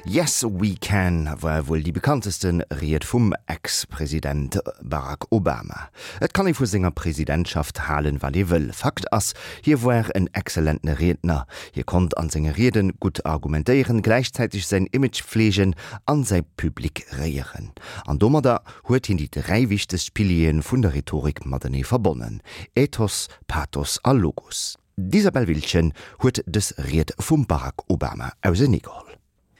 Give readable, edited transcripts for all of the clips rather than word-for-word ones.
Yes We Can war wuel déi bekannteste Ried vum Ex-President Barack Obama. Et kann ee vu senger Presidentschaft halen, wat ee wëll. Fakt ass, hie war en exzellenten Riedner. Hie konnt an senge Rieden gutt argumentéieren, gläichzäiteg säin Image fleegen an säi Public réieren. An domadder huet hien déi 3 wichtegst Piliere vun der Rhetorik matenee verbonnen, Ethos, Pathos a Logos. D'Isabel Wiltgen huet dës Ried vum Barack Obama auseneegeholl.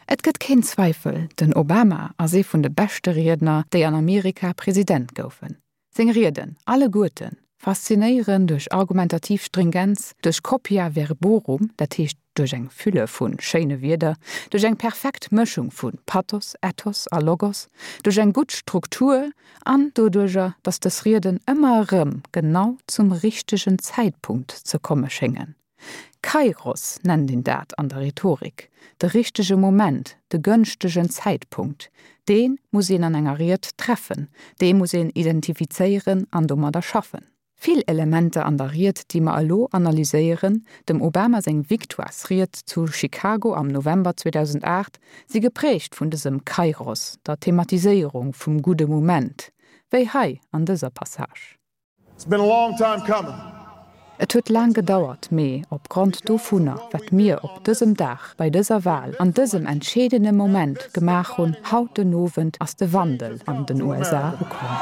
Et gëtt keen Zweifel, den Obama ass ee vun de beschte Riedner, déi an Amerika President goufen. Seng Rieden, alleguerten, faszinéieren duerch argumentativ Stringenz, duerch Copia verborum, dat heescht duerch eng Fülle vu schéine Wierder, duerch eng perfekt Mëschung vu Pathos, Ethos a Logos, duerch eng gutt Struktur an doduerjer, datt dës Rieden ëmmer erëm genau zum richtegen Zäitpunkt ze komme schéngen. Kairos nennt een dat an der Rhetorik, de richtege Moment, de gënschtegen Zäitpunkt. Dee muss een an enger Ried treffen, dee muss een identifizéieren an domadder schaffen. Vill Elementer an der Ried, déi mer elo analyséieren, dem Obama seng Victoiresried zu Chicago am November 2008, si geprägt vun dësem Kairos, der Thematiséierung vum gudde Moment, wéi hei an dëser Passage. It's been a long time coming. Et huet laang gedauert, mee opgrond dovunner, wat mir op dësem Dag, bei dëser Wal, an dësem entscheedene Moment gemaach hunn, haut den Owend, ass de Wandel an den USA ukomm.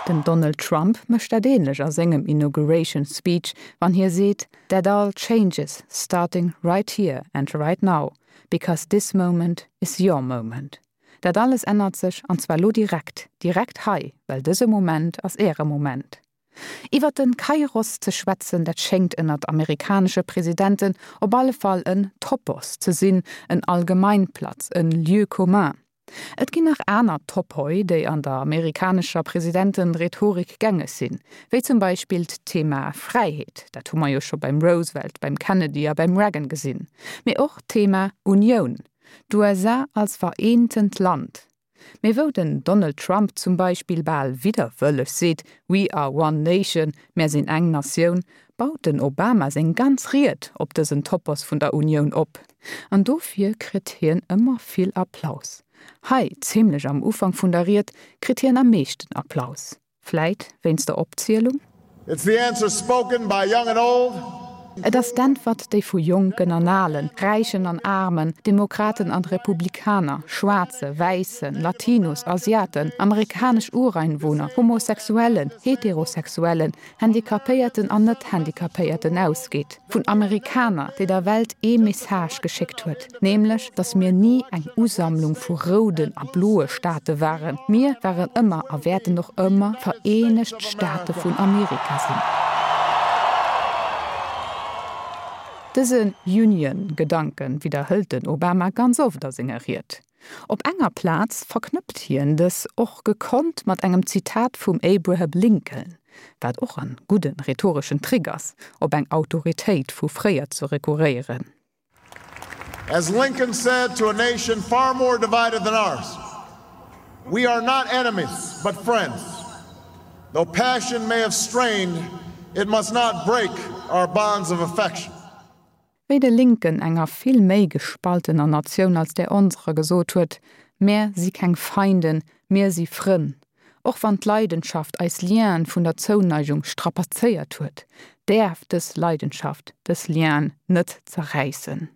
Den Donald Trump mécht dat änlech a sengem Inauguration Speech, wann hie seet, That all changes starting right here and right now, because this moment is your moment. Dat alles ännert sech, an zwar lo direkt, direkt hei, well dëse Moment ass Äre Moment. Iwwer den Kairos ze schwätzen, dat schéngt ënnert amerikanesche Presidenten op alle Fall en Topos ze sinn, en Allgemeinplatz, en Lieu commun. Et ginn nach aner Topoi, déi an der amerikanescher Presidentenrhetorik gängeg sinn, wéi zum Beispill d'Thema Fräiheet, dat hu mer jo scho beim Roosevelt, beim Kennedy a beim Reagan gesinn, mee och d'Thema Unioun, D'USA als vereentent Land. Mee wou den Donald Trump zum Beispill bal widderwëlleg seet, We are one nation, mär sinn eng Natioun, baut den Obama seng ganz Ried op dësen Topos vun der Unioun op. An dofir kritt hien ëmmer vill Applaus. Hei, zimlech am Ufank vun der Ried, kritt hien am meeschten Applaus. Vläit wéinst der Opzielung? It's the answer spoken by young and old. Et ass d'Äntwert, déi vu Jonken an Alen, Räichen an Aarmen, Demokraten an Republikaner, Schwaarze, Wäissen, Latinos, Asiaten, amerikanesch Ureinwohner, Homosexuellen, Heterosexuellen, Handicapéierten an Net-Handicapéierten ausgeet. Vun Amerikaner, déi der Welt ee Message geschéckt huet, nämlech datt mir ni eng Usammlung vu rouden a bloe Staate waren, mir waren ëmmer a wäerten och ëmmer d'Vereenegt Staate vun Amerika sinn. Dëse Union-Gedanke widderhëlt den Obama ganz oft a senger Ried. Op enger Plaz verknëppt hien dës och gekonnt mat engem Zitat vum Abraham Lincoln, wat och en gudden rhetoreschen Trick ass, op eng Autoritéit vu fréier ze rekurréieren. As Lincoln said to a nation far more divided than ours, We are not enemies, but friends. Though passion may have strained, it must not break our bonds of affection. Wéi de Lincoln enger vill méi gespaltener Natioun als där onserer gesot huet, Mär si keng Feinden, mir si Frënn. Och wann d'Leidenschaft eis Lienen vun der Zouneigung strapazéiert huet, däerf dës Leidenschaft dës Lienen net zerräissen.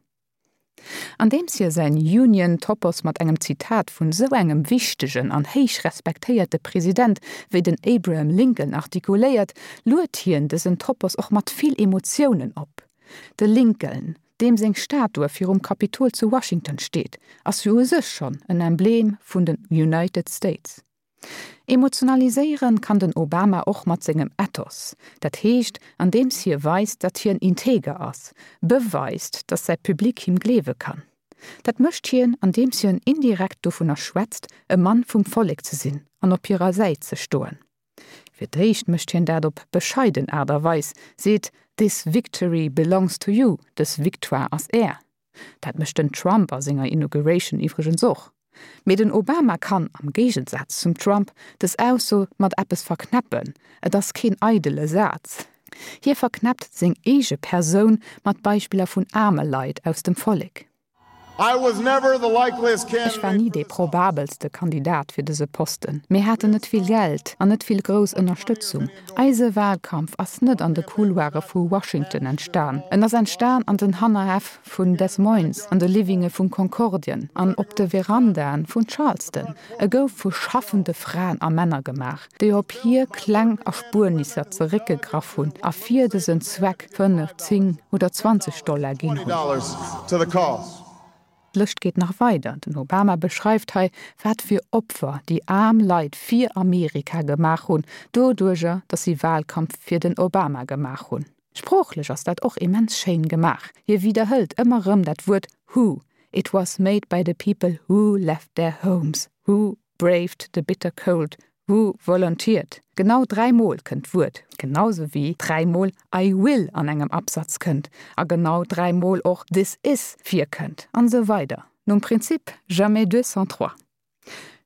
Andeems hie säin Union-Topos mat engem Zitat vun sou engem wichtegen an héich respektéierte President wéi den Abraham Lincoln artikuléiert, luet hien dësen Topos och mat vill Emotiounen op. De Lincoln, deem seng Statue virum Kapitol zu Washington steet, ass jo u sech schonn en Emblem vun den United States. Emotionaliséieren kann den Obama och mat sengem Ethos, dat heescht andeems hie weist, datt hien integer ass, beweist, datt säi Public him gleewe kann. Dat mécht hien, andeems hien indirekt dovunner schwätzt, e Mann vum Vollek ze sinn an op hirer Säit ze stoen. Fir d'éischt mécht hien dat op bescheiden Aart a Weis, seet, This victory belongs to you, dës Victoire ass Är. Dat mécht den Trump a senger Inauguration iwwregens och. Mee den Obama kann, am Géigensaz zum Trump, dës Ausso mat eppes verknäppen, et ass keen eidele Saz. Hie verknäppt seng eege Persoun mat Beispiller vun aarme Leit aus dem Vollek. Ech war ni dee probabelste Kandidat fir dëse Posten. Mir haten net vill Geld an net vill grouss Ënnerstëtzung. Eise Wahlkampf ass net an de Couloire vu Washington entstan. En ass entstan an den Hannerhäff vun Des Moines, an de Livinge vun Concordien an op de Verandaen vun Charleston. E gouf vu schaffende Fraen a Männer gemaach, déi op hir kleng Erspuernisser zeréckgegraff hunn a fir dësen Zweck 5, 10 oder 20 Dollar ginn hunn. D'Lëscht geet nach weider. Den Obama beschreift hei, wat fir Opfer déi aarm Leit fir Amerika gemaach hunn, doduerjer, datt si Wahlkampf fir den Obama gemaach hunn. Sproochlech ass dat och immens schéin gemaach. Hie widderhëlt ëmmer erëm dat Wuert who, It was made by the people who left their homes, who braved the bitter cold, who volunteered. Genau dräimol kënnt d'Wuert, genau sou wéi dräimol I will an engem Absatz kënnt a genau dräimol och this is virkënnt an esou weider nom Prinzip jamais deux sans trois.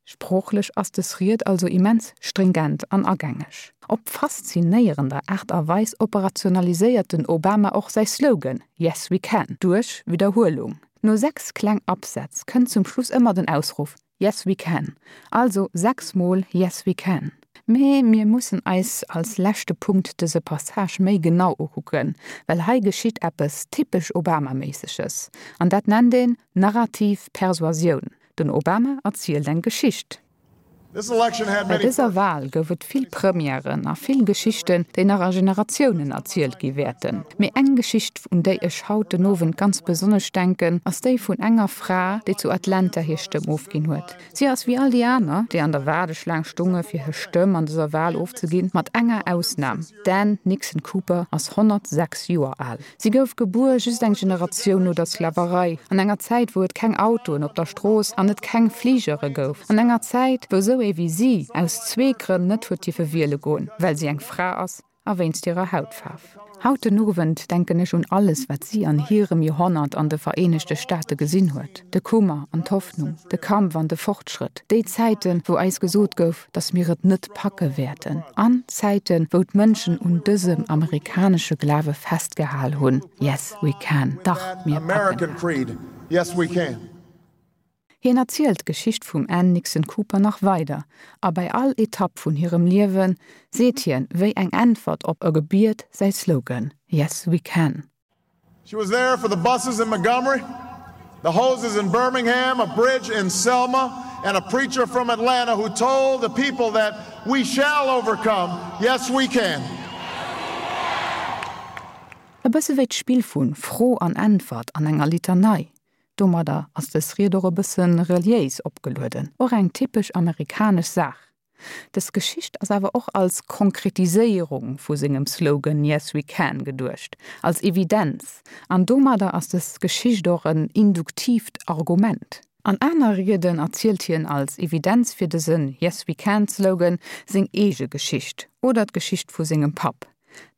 Sproochlech ass dës Ried also immens stringent an agängeg. Op faszinéierender Aart a Weis operationaliséiert den Obama och säi Slogan Yes we can duerch Widderhuelung. No 6 kleng Absätz kënnt zum Schluss ëmmer den Ausruff Yes we can, also 6 mol Yes we can. Mee mir mussen eis als leschte Punkt dëse Passage méi genau ukucken, well hei geschitt eppes typesch Obama-méisseges, an dat nennt een narrativ Persuasioun. Den Obama erzielt eng Geschicht. Bei dëser Wal gouf et vill Premièren a vill Geschichten, déi nach a Generatiounen erzielt gi wäerten. Mee eng Geschicht, un déi ech haut den Owend ganz besonnesch denken, ass déi vun enger Fra, déi zu Atlanta hir Stëmm ofginn huet. Si ass wéi all déi aner, déi an der Waardeschlaang stonge fir hir Stëmm an dëser Wal ofzeginn, mat enger Ausnam, D'Ann Nixon Cooper ass 106 Joer al. Si gouf gebuer just eng Generatioun no der Sklaverei, an enger Zäit wou et keng Autoen op der Strooss an et keng Fligere gouf, an enger Zäit wou sou ee wéi si aus zwee Grënn net huet dierfe wiele goen, well si eng Fra ass a wéinst hirer Hautfaarf. Haut den Owend denken ech un alles wat si an hirem Joerhonnert an de Vereenegte Staate gesinn huet, de Kummer an d'Hoffnung, de Kampf an de Fortschrëtt, déi Zäiten wou eis gesot gouf, dass mir et net packe wäerten, an Zäiten, wou d'Mënschen un dësem amerikanesche Glawe festgehal hunn, Yes, we can, dach, mir packen dat. Hien erzielt d'Geschicht vum Ann Nixon Cooper nach weider, a bei all Etapp vun hirem Liewe seet hien, wéi eng Äntwert op e Gebiet, säi Slogan, Yes, we can. She was there for the buses in Montgomery, the hoses in Birmingham, a bridge in Selma, and a preacher from Atlanta who told the people that we shall overcome. Yes, we can. E bësse wéi d'Spill vu Fro an Äntwert an enger Litanei. Domadder ass dës Ried och e bësse reliéis opgelueden, och eng typesch amerikanesch Saach. Dës Geschicht ass awer och als Konkretiséierung vu sengem Slogan Yes we can geduecht, als Evidenz, an domadder ass dës Geschicht och en induktiivt Argument. An aner Rieden erzielt hien als Evidenz fir dëse Yes we can Slogan seng eege Geschicht oder d'Geschicht vu sengem Papp.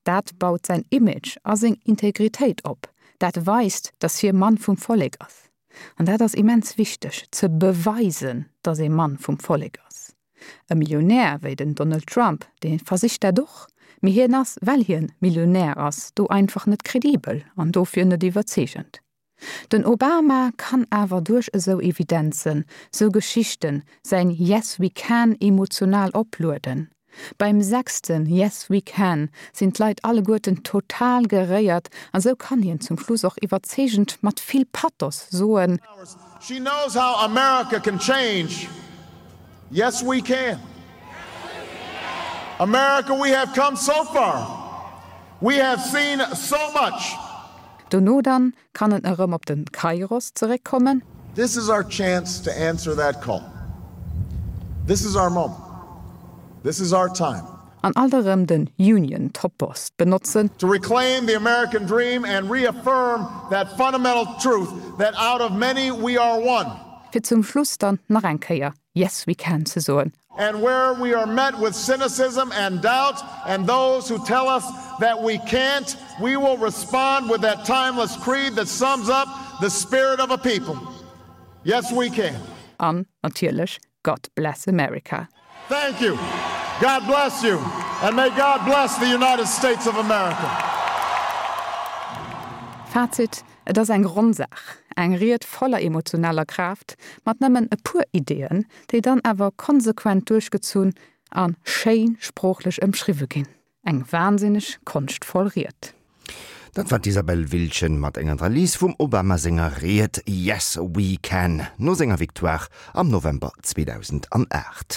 Dat baut säin Image a seng Integritéit op, dat weist, datt hie Mann vum Vollek ass. An dat ass immens wichteg, ze beweisen, datt ee Mann vum Vollek ass. E Millionär wéi den Donald Trump, dee versicht dat och, mee hien ass, well hien Millionär ass, do einfach net kredibel an dofir net iwwerzeegend. Den Obama kann awer duerch esou Evidenzen, sou Geschichten, säin Yes we can emotional oplueden. Beim sechsten Yes we can sinn d'Leit alleguerten total geréiert an sou kann hien zum Schluss och iwwerzeegend mat vill Pathos soen. She knows how America can change. Yes we can. America we have come so far. We have seen so much. Dono dann kann en erëm op den Kairos zeréckkommen. This is our chance to answer that call. This is our moment. This is our time. An alt erëm den Union Topos benotzen. To reclaim the American dream and reaffirm that fundamental truth that out of many we are one. Fir zum Schluss dann nach eng Kéier Yes we can ze soen. And where we are met with cynicism and doubt and those who tell us that we can't, we will respond with that timeless creed that sums up the spirit of a people. Yes, we can. An natierlech God bless America. Thank you. God bless you. And may God bless the United States of America. Fazit, Et ass eng ronn Saach, eng Ried voller emotionaler Kraaft, mat nëmmen e puer Ideeën, déi dann awer konsequent duerchgezunn a schéin sproochlech ëmschriwwe ginn. Eng wahnsinneg konschtvoll Ried. Dat war d'Isabelle Wiltgen mat enger Analys vum Obama senger Ried Yes, we can no senger Victoire am November 2008.